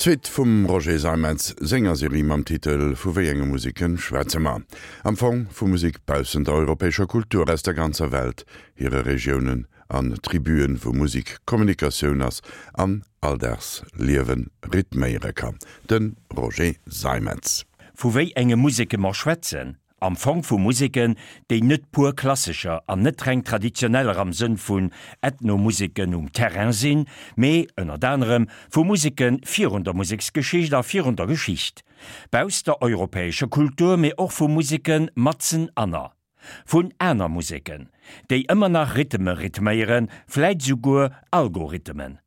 D'Suite vum Roger Seimetz senger Serie mam Titel Vu wéi enge Museke schwätze mer? Am Fong vu Musek baussent der europäescher Kultur, aus der ganzer Welt, hire Regiounen an Tribuen, wou Musek Kommunikatioun ass an Alldagsliewe rhythméiere kann. De Roger Seimetz. Vu wéi enge Museke mer schwätzen? Am Fong vu Museken, déi net pur klassescher an net reng traditioneller am Sënn vun Ethnomuseken um Terrain sinn, mee, ënnert anerem, vu Museke virun der Museksgeschicht a virun der Geschicht bausst der europäescher Kultur, mee och vu Museke matzen anner vun aner Museken, déi ëmmer nach Rhythme rhythméieren, vläit esouguer Algorithmen.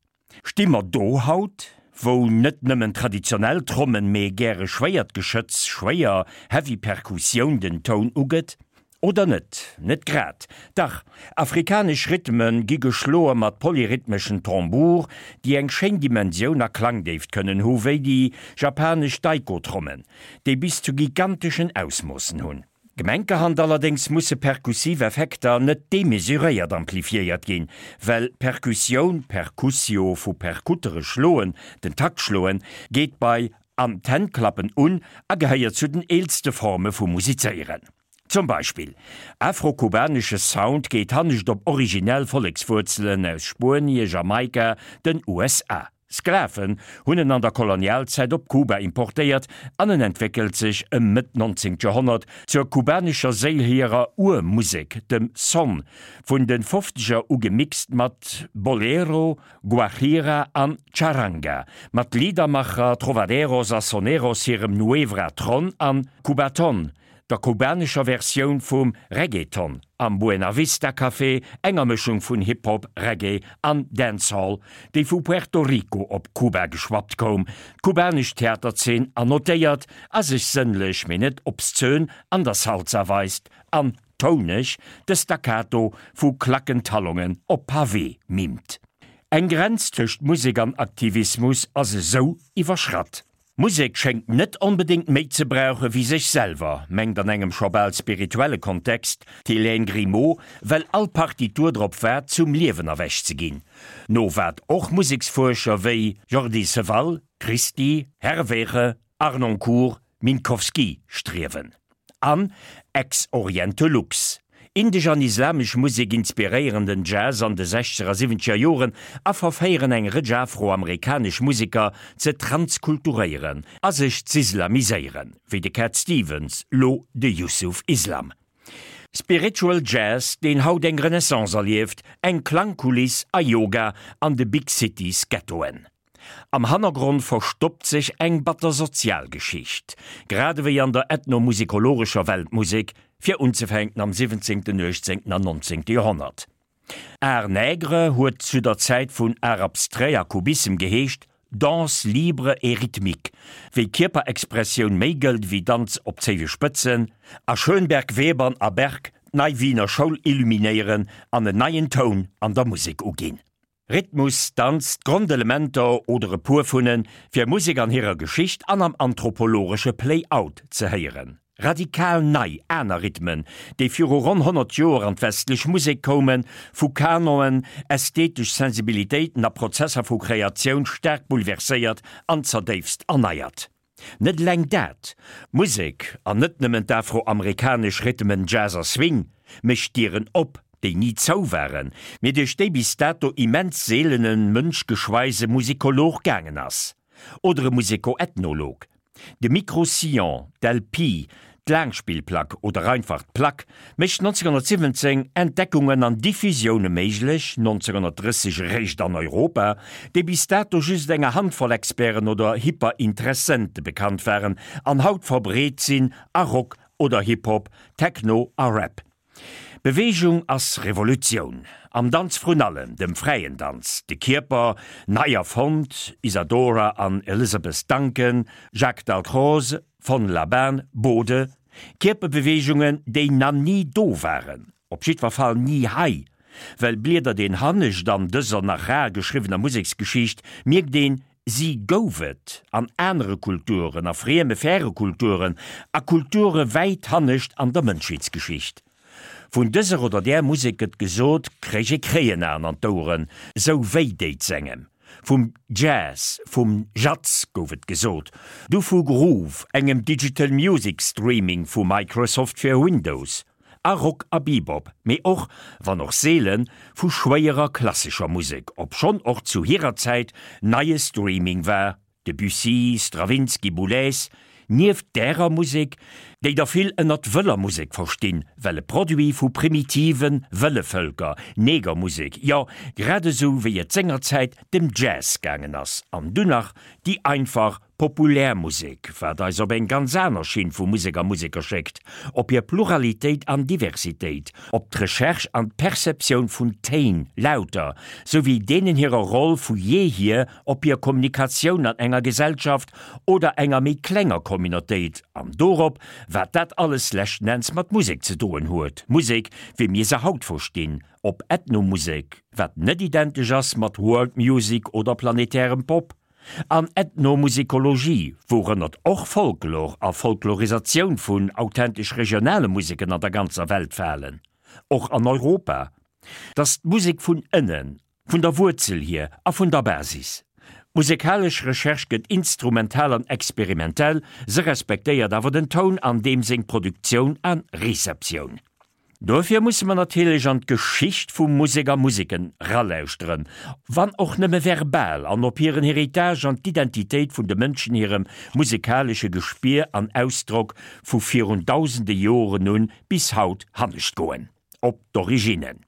Sti mer do haut, wou net nëmmen traditionell Trommen, mee gäre schwéiert Geschëtz, schwéier heavy Perkussioun den Toun ugëtt? Oder net? Net grad. Dach, afrikanesch Rhythme gi geschloe mat polyrhythmeschen Tambour, déi eng schéin Dimensioun a Klangdéift kënnen hu wéi déi japanesch Taiko-Trommen, déi bis zu giganteschen Ausmoossen hunn. Gemenkerhand allerdéngs musse perkussiv Effekter net demesuréiert amplifiéiert ginn, well Perkussioun, percussio vu percutere schloen, den Takt schloen, geet bei an d'Hänn klappen un a gehéiert zu den eelste Forme vu Musizéieren. Zum Beispill afro-kubanesche Sound geet hannescht op originell Vollekswuerzelen aus Spuenie, Jamaika, den USA. Sklaven hunn en an der Kolonialzäit op Kuba importéiert an en entwéckelt sech ëm Mëtt 19. Joerhonnert zur kubanescher Séil hirer Urmusek, dem Son, vun de Fofzeger u gemixt mat Bolero, Guajira an Charanga, mat Liedermacher, Trovaderos a Soneros hirem Nuevra Tron an Cubaton, der kubanescher Versioun vum Reggaeton am Buena Vista Café, enger Mëschung vun Hip-Hop, Reggae an Dancehall, déi vu Puerto Rico op Kuba geschwappt koum, d'kubanesch Theaterzeen annotéiert a sech sënnlech, mee net obszön an der Salsa weist an touneg de Staccato vu Klackentalongen op Pavé mimt. Eng Grenz tëscht Musek an Aktivismus ass esou iwwerschratt. Musek schéngt net onbedéngt méi ze brauche wéi sech selwer, mengt an engem scho bal spirituelle Kontext d'Hélène Grimaud, well all Partitur drop waart, zum Liewen erwächt ze ginn. No wat och Museksfuerscher wéi Jordi Savall, Christi, Herweghe, Harnoncourt, Minkowski striewen. An Ex Oriente Lux. Indesch an islamesch Musek inspiréieren den Jazz an de sechzeger a siwwenzeger Joren a verféieren eng Rëtsch afroamerikanesch Museker ze transkulturéieren a sech z'islamiséieren, wéi de Cat Stevens, lo de Yusuf Islam. Spiritual Jazz, deen haut eng Renaissance erlieft, eng Klangkuliss a Yoga an de Big Cities Ghettoen. Am Hannergrond verstoppt sech eng batter Sozialgeschicht, grad ewéi an der ethnomusikologescher Weltmusek, fir unzefänken am 17., 18. an 19. Joerhonnert. Art nègre huet zu der Zäit vun Art abstrait a Kubissem geheescht, Danse libre et rythmique, wéi Kierperexpressioun méi gëllt ewéi Danz op zéiwe Spëtzen, a Schönberg, Webern a Berg d'Nei Wiener Schoul illuminéieren an en neien Toun an der Musek uginn. Rhythmus, Danz, d'Grondelementer oder e puer vun fir Musek an hirer Geschicht an am anthropologesche Play-out ze héieren. Radikal nei, aner Rhythmen, déi viru ronn 100 Joer an d'westlech Musek koumen, vu Kanonen, ästhetesch Sensibilitéiten a Prozesser vu Kreatioun staark bouleverséiert an zerdéifst erneiert. Net eleng dat, Musek, an net nëmmen d'afroamerikanesch Rhythmen Jazz a Swing, mécht Dieren op, déi ni zou waren, mee duerch déi bis dato immens seelene mënschgeschweise Musikolog gaangen ass. Oder e Musikoethnolog. De Micro-Sillon, d'LP, D'Laangspillplack oder einfach d'Plack mécht 1917 Entdeckungen an Diffusioune méiglech, 1930 eréischt an Europa, déi bis dato just enger Handvoll Experten oder Hyperinteressente bekannt waren an haut verbreet sinn a Rock oder Hip-Hop, Techno a Rap. Beweegung ass Revolutioun. Am Danz vrun allem, dem fräien Danz. De Kierper, nei erfonnt, Isadora an Elizabeth Duncan, Jacques Dalcroze, Von Laban, Bode, Kierperbeweegungen, déi na ni do waren, op jiddwer Fall ni hei, well bliedert een hannescht an dëser nach rar geschriwwener Museksgeschicht, mierkt een, si gouf et an anere Kulturen, a frieme, färe Kulturen, a Kulture wäit hannescht an der Mënschheetsgeschicht. Vun dëser oder där Musek gëtt gesot, kréich ee Kréienaen an d'Oueren, sou wéi déit s'engem. Vum Jazz, vum Jazz gouf et gesot, du vu Groove, engem Digital Music Streaming vu Microsoft fir Windows, a Rock a Bebop, mee och, wann och seelen, vu schwéierer klassescher Musek, obschonn och zu hirer Zäit neie Streaming war, Debussy, Stravinsky, Boulez, nieft därer Musek, déi der vill ënnert wëller Musek verstinn, well e Produit vu primitive wëlle Vëlker, Negermusek, jo, grad esou wéi et sengerzäit dem Jazz gaangen ass, an dunn nach déi einfach Populär Musek, wat eis op eng ganz aner Schinn vu Musek a Museker schéckt, op hir Pluralitéit an Diversitéit, op d'Recherche an d'Perceptioun vun Téin, Lauter, souwéi deenen hirer Roll vu jeehier op hir Kommunikatioun an enger Gesellschaft oder enger méi klenger Communautéit an dorop, wat dat alles leschten Enns mat Musek ze doen huet, Musek, wéi mir se haut verstinn, op Ethnomusek, wat net identesch ass mat World Music oder planetärem Pop, an Ethnomusikologie, wourënnert och Folklor a Folklorisatioun vun authentesch regionale Museken an der ganzer Welt falen, och an Europa, dass d'Musek vun ënnen Vun der Wuerzel hier a vun der Basis. D'musekalesch Recherche gëtt instrumental an experimentell, se respektéiert awer den Toun an deem seng Produktioun a Receptioun. Dofir musse mer natierlech an d'Geschicht vu Musek a Museken ralauschteren, wann och nëmme verbal, an op hiren Héritage an d'Identitéit vun de Mënschen hirem musekalesche Gespier an Ausdrock vu virun dausende Joren un bis haut hannescht goen, op d'Originnen.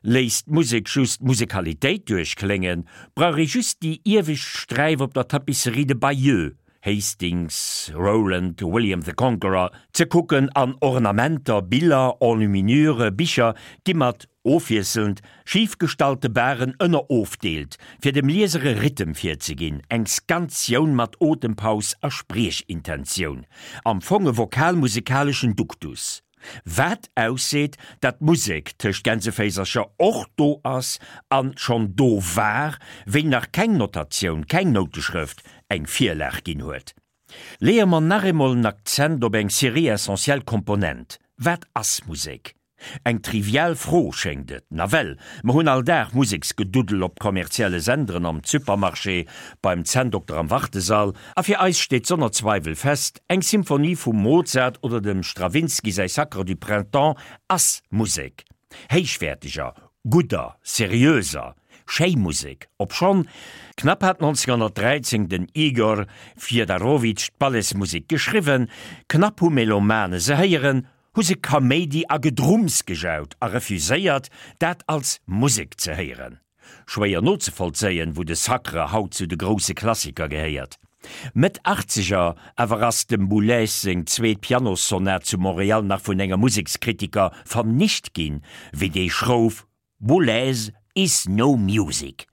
Léisst d'Musek just d'Musekalitéit duerchkléngen, brauch ee just déi iewescht Sträif op der Tapisserie de Bayeux, Hastings, Roland, William the Conqueror, ze kucken an Ornamenter, Biller, Enluminure, Bicher gi mat, ofwiesselnd, schif gestallte Baren ënnerofdeelt, fir dem Lieser e Rhythm virzeginn, eng Skantioun mat Otempaus a Spriechintentioun, am Fong e vokal-musekaleschen Duktus. Wat ausseet, dat d'Musek tëscht Gänseféisercher och do ass an schonn do war, wéi nach keng Notatioun, keng Nouteschrëft eng Virlag ginn huet. Leeë mer nach eemol en Akzent op eng Serie essentiell Komponent, Wat ass Musek? Eng trivial Fro schéngt et. Nawell, mer hunn all Dag Museksgeduddel op kommerzielle Senderen, am Supermarché, beim Zänndokter am Wartesall, a fir eis steet sonner Zweiwel fest, Eng Symphonie vum Mozart oder dem Stravinsky säi Sacre du Printemps ass Musek. Héichwäerteger, gudder, seriöser, schéi Musek. Obschonn, knapp hat 1913 den Igor Fiedarowitsch d'Balletsmusek geschriwwen, knapp hu Melomane se héieren, hu se Kaméidi a Gedrumms gejaut a refuséiert, dat als Musek ze héieren. Schwéier nozevollzéien, wou de Sacre haut zu de grousse Klassiker gehéiert. Mëtt Achtzeger awer ass dem Boulez seng zweet Pianossonat zu Montréal nach vun engem Musekskritiker vernicht ginn, wéi dee schrouf, Boulez is no music.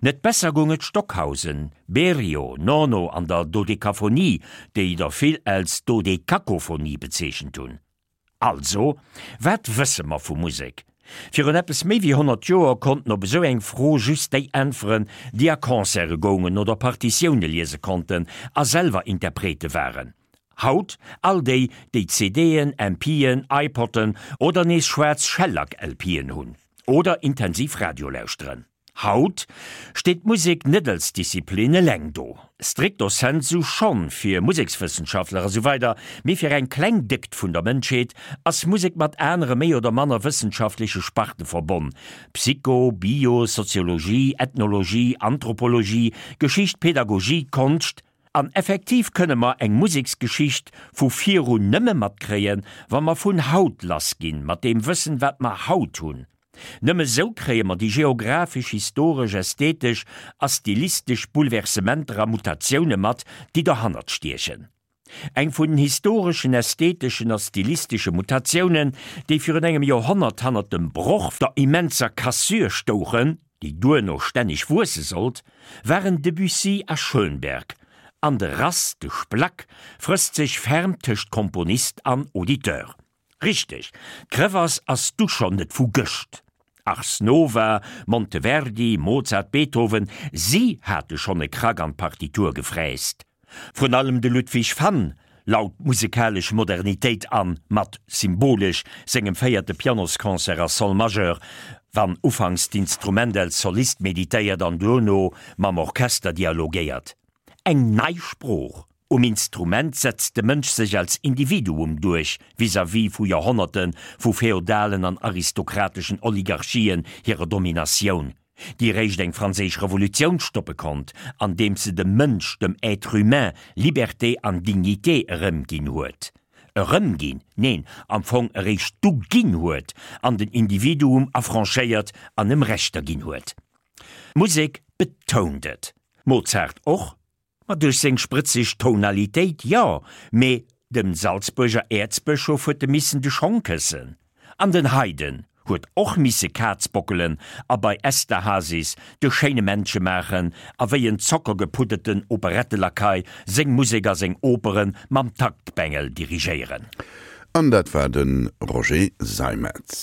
Net besser goung et Stockhausen, Berio, Nono an der Dodekaphonie, déi der vill als Dodekakophonie bezeechent hunn. Also, wat wësse mer vu Musek? Virun eppes méi wéi 100 Joer konnten op esou eng Fro just déi äntweren, déi a Concerte goungen oder Partitioune liese konnten a selwer Interprete waren. Haut all déi, déi CDen, MPen, iPod'en oder nees schwaarz Shellac-LPen hunn. Oder intensiv Radio lauschteren. Haut steet d'Musek net als Disziplin eleng do. Stricto sensu schonn fir Musekswëssenschaftler a sou weider, mee fir eng kleng Déckt vun der Mënschheet ass Musek mat anere méi oder manner wëssenschaftleche Sparte verbonn, Psycho-, Bio-, Soziologie, Ethnologie, Anthropologie, Geschicht, Pedagogie, Konscht. An effektiv kënne mer eng Museksgeschicht vu virun nëmme matkréien, wa mer vun haut lassginn, mat deem Wëssen, wat mer haut hunn. Nëmme sou kréie mer déi geographesch, historesch, ästhetesch a stilistesch Bouleversementer a Mutatioune mat, déi dohannert stiechen. Eng vun den historeschen, ästheteschen a stilistesche Mutatiounen, déi virun engem Joerhonnert hannert dem Broch, der immenser Cassure stouchen, déi duerno stänneg wuesse sollt, waren Debussy a Schönberg, an de Rass, de Splack, frësst sech ferm tëscht Komponist an Auditeur. Richteg, d'Crevasse ass du schonn net vu gëscht. Ars Nova, Monteverdi, Mozart, Beethoven, si hate schonn e Krack an d'Partitur gefräst. Vrun allem de Ludwig van laut d'musekalesch Modernitéit an, mat, symbolesch, sengem véierte Pianosconcert a Sol Majeur. Wann ufanks d'Instrument als Solist meditéiert an duerno mam Orchester dialogéiert. Eng nei Sprooch. Um Instrument setzt de Mënsch sech als Individuum duerch vis-à-vis vu Joerhonnerte vu feodalen an aristokrateschen Oligarchien hirer Dominatioun, déi réischt eng franséisch Revolutioun stoppe konnt, andeems se dem Mënsch, dem Être humain, Liberté an Dignité erëmginn huet. Erëmginn, neen, am Fong eréischt du ginn huet an den Individuum affranchéiert an em Rechter ginn huet. D'Musek betount et. Mozart och, ma duerch seng sprëtzeg Tonalitéit, jo, mee dem Salzbuerger Äerzbëschof huet e missen de Schong këssen. An den Haydn huet och misse Kaz bockelen a bei Esterhazys de schéine Männche maachen a wéi en zockergepudderten Operettelakei seng Musek a seng Opere mam Taktbengel dirigéieren. An dat war de Roger Seimetz.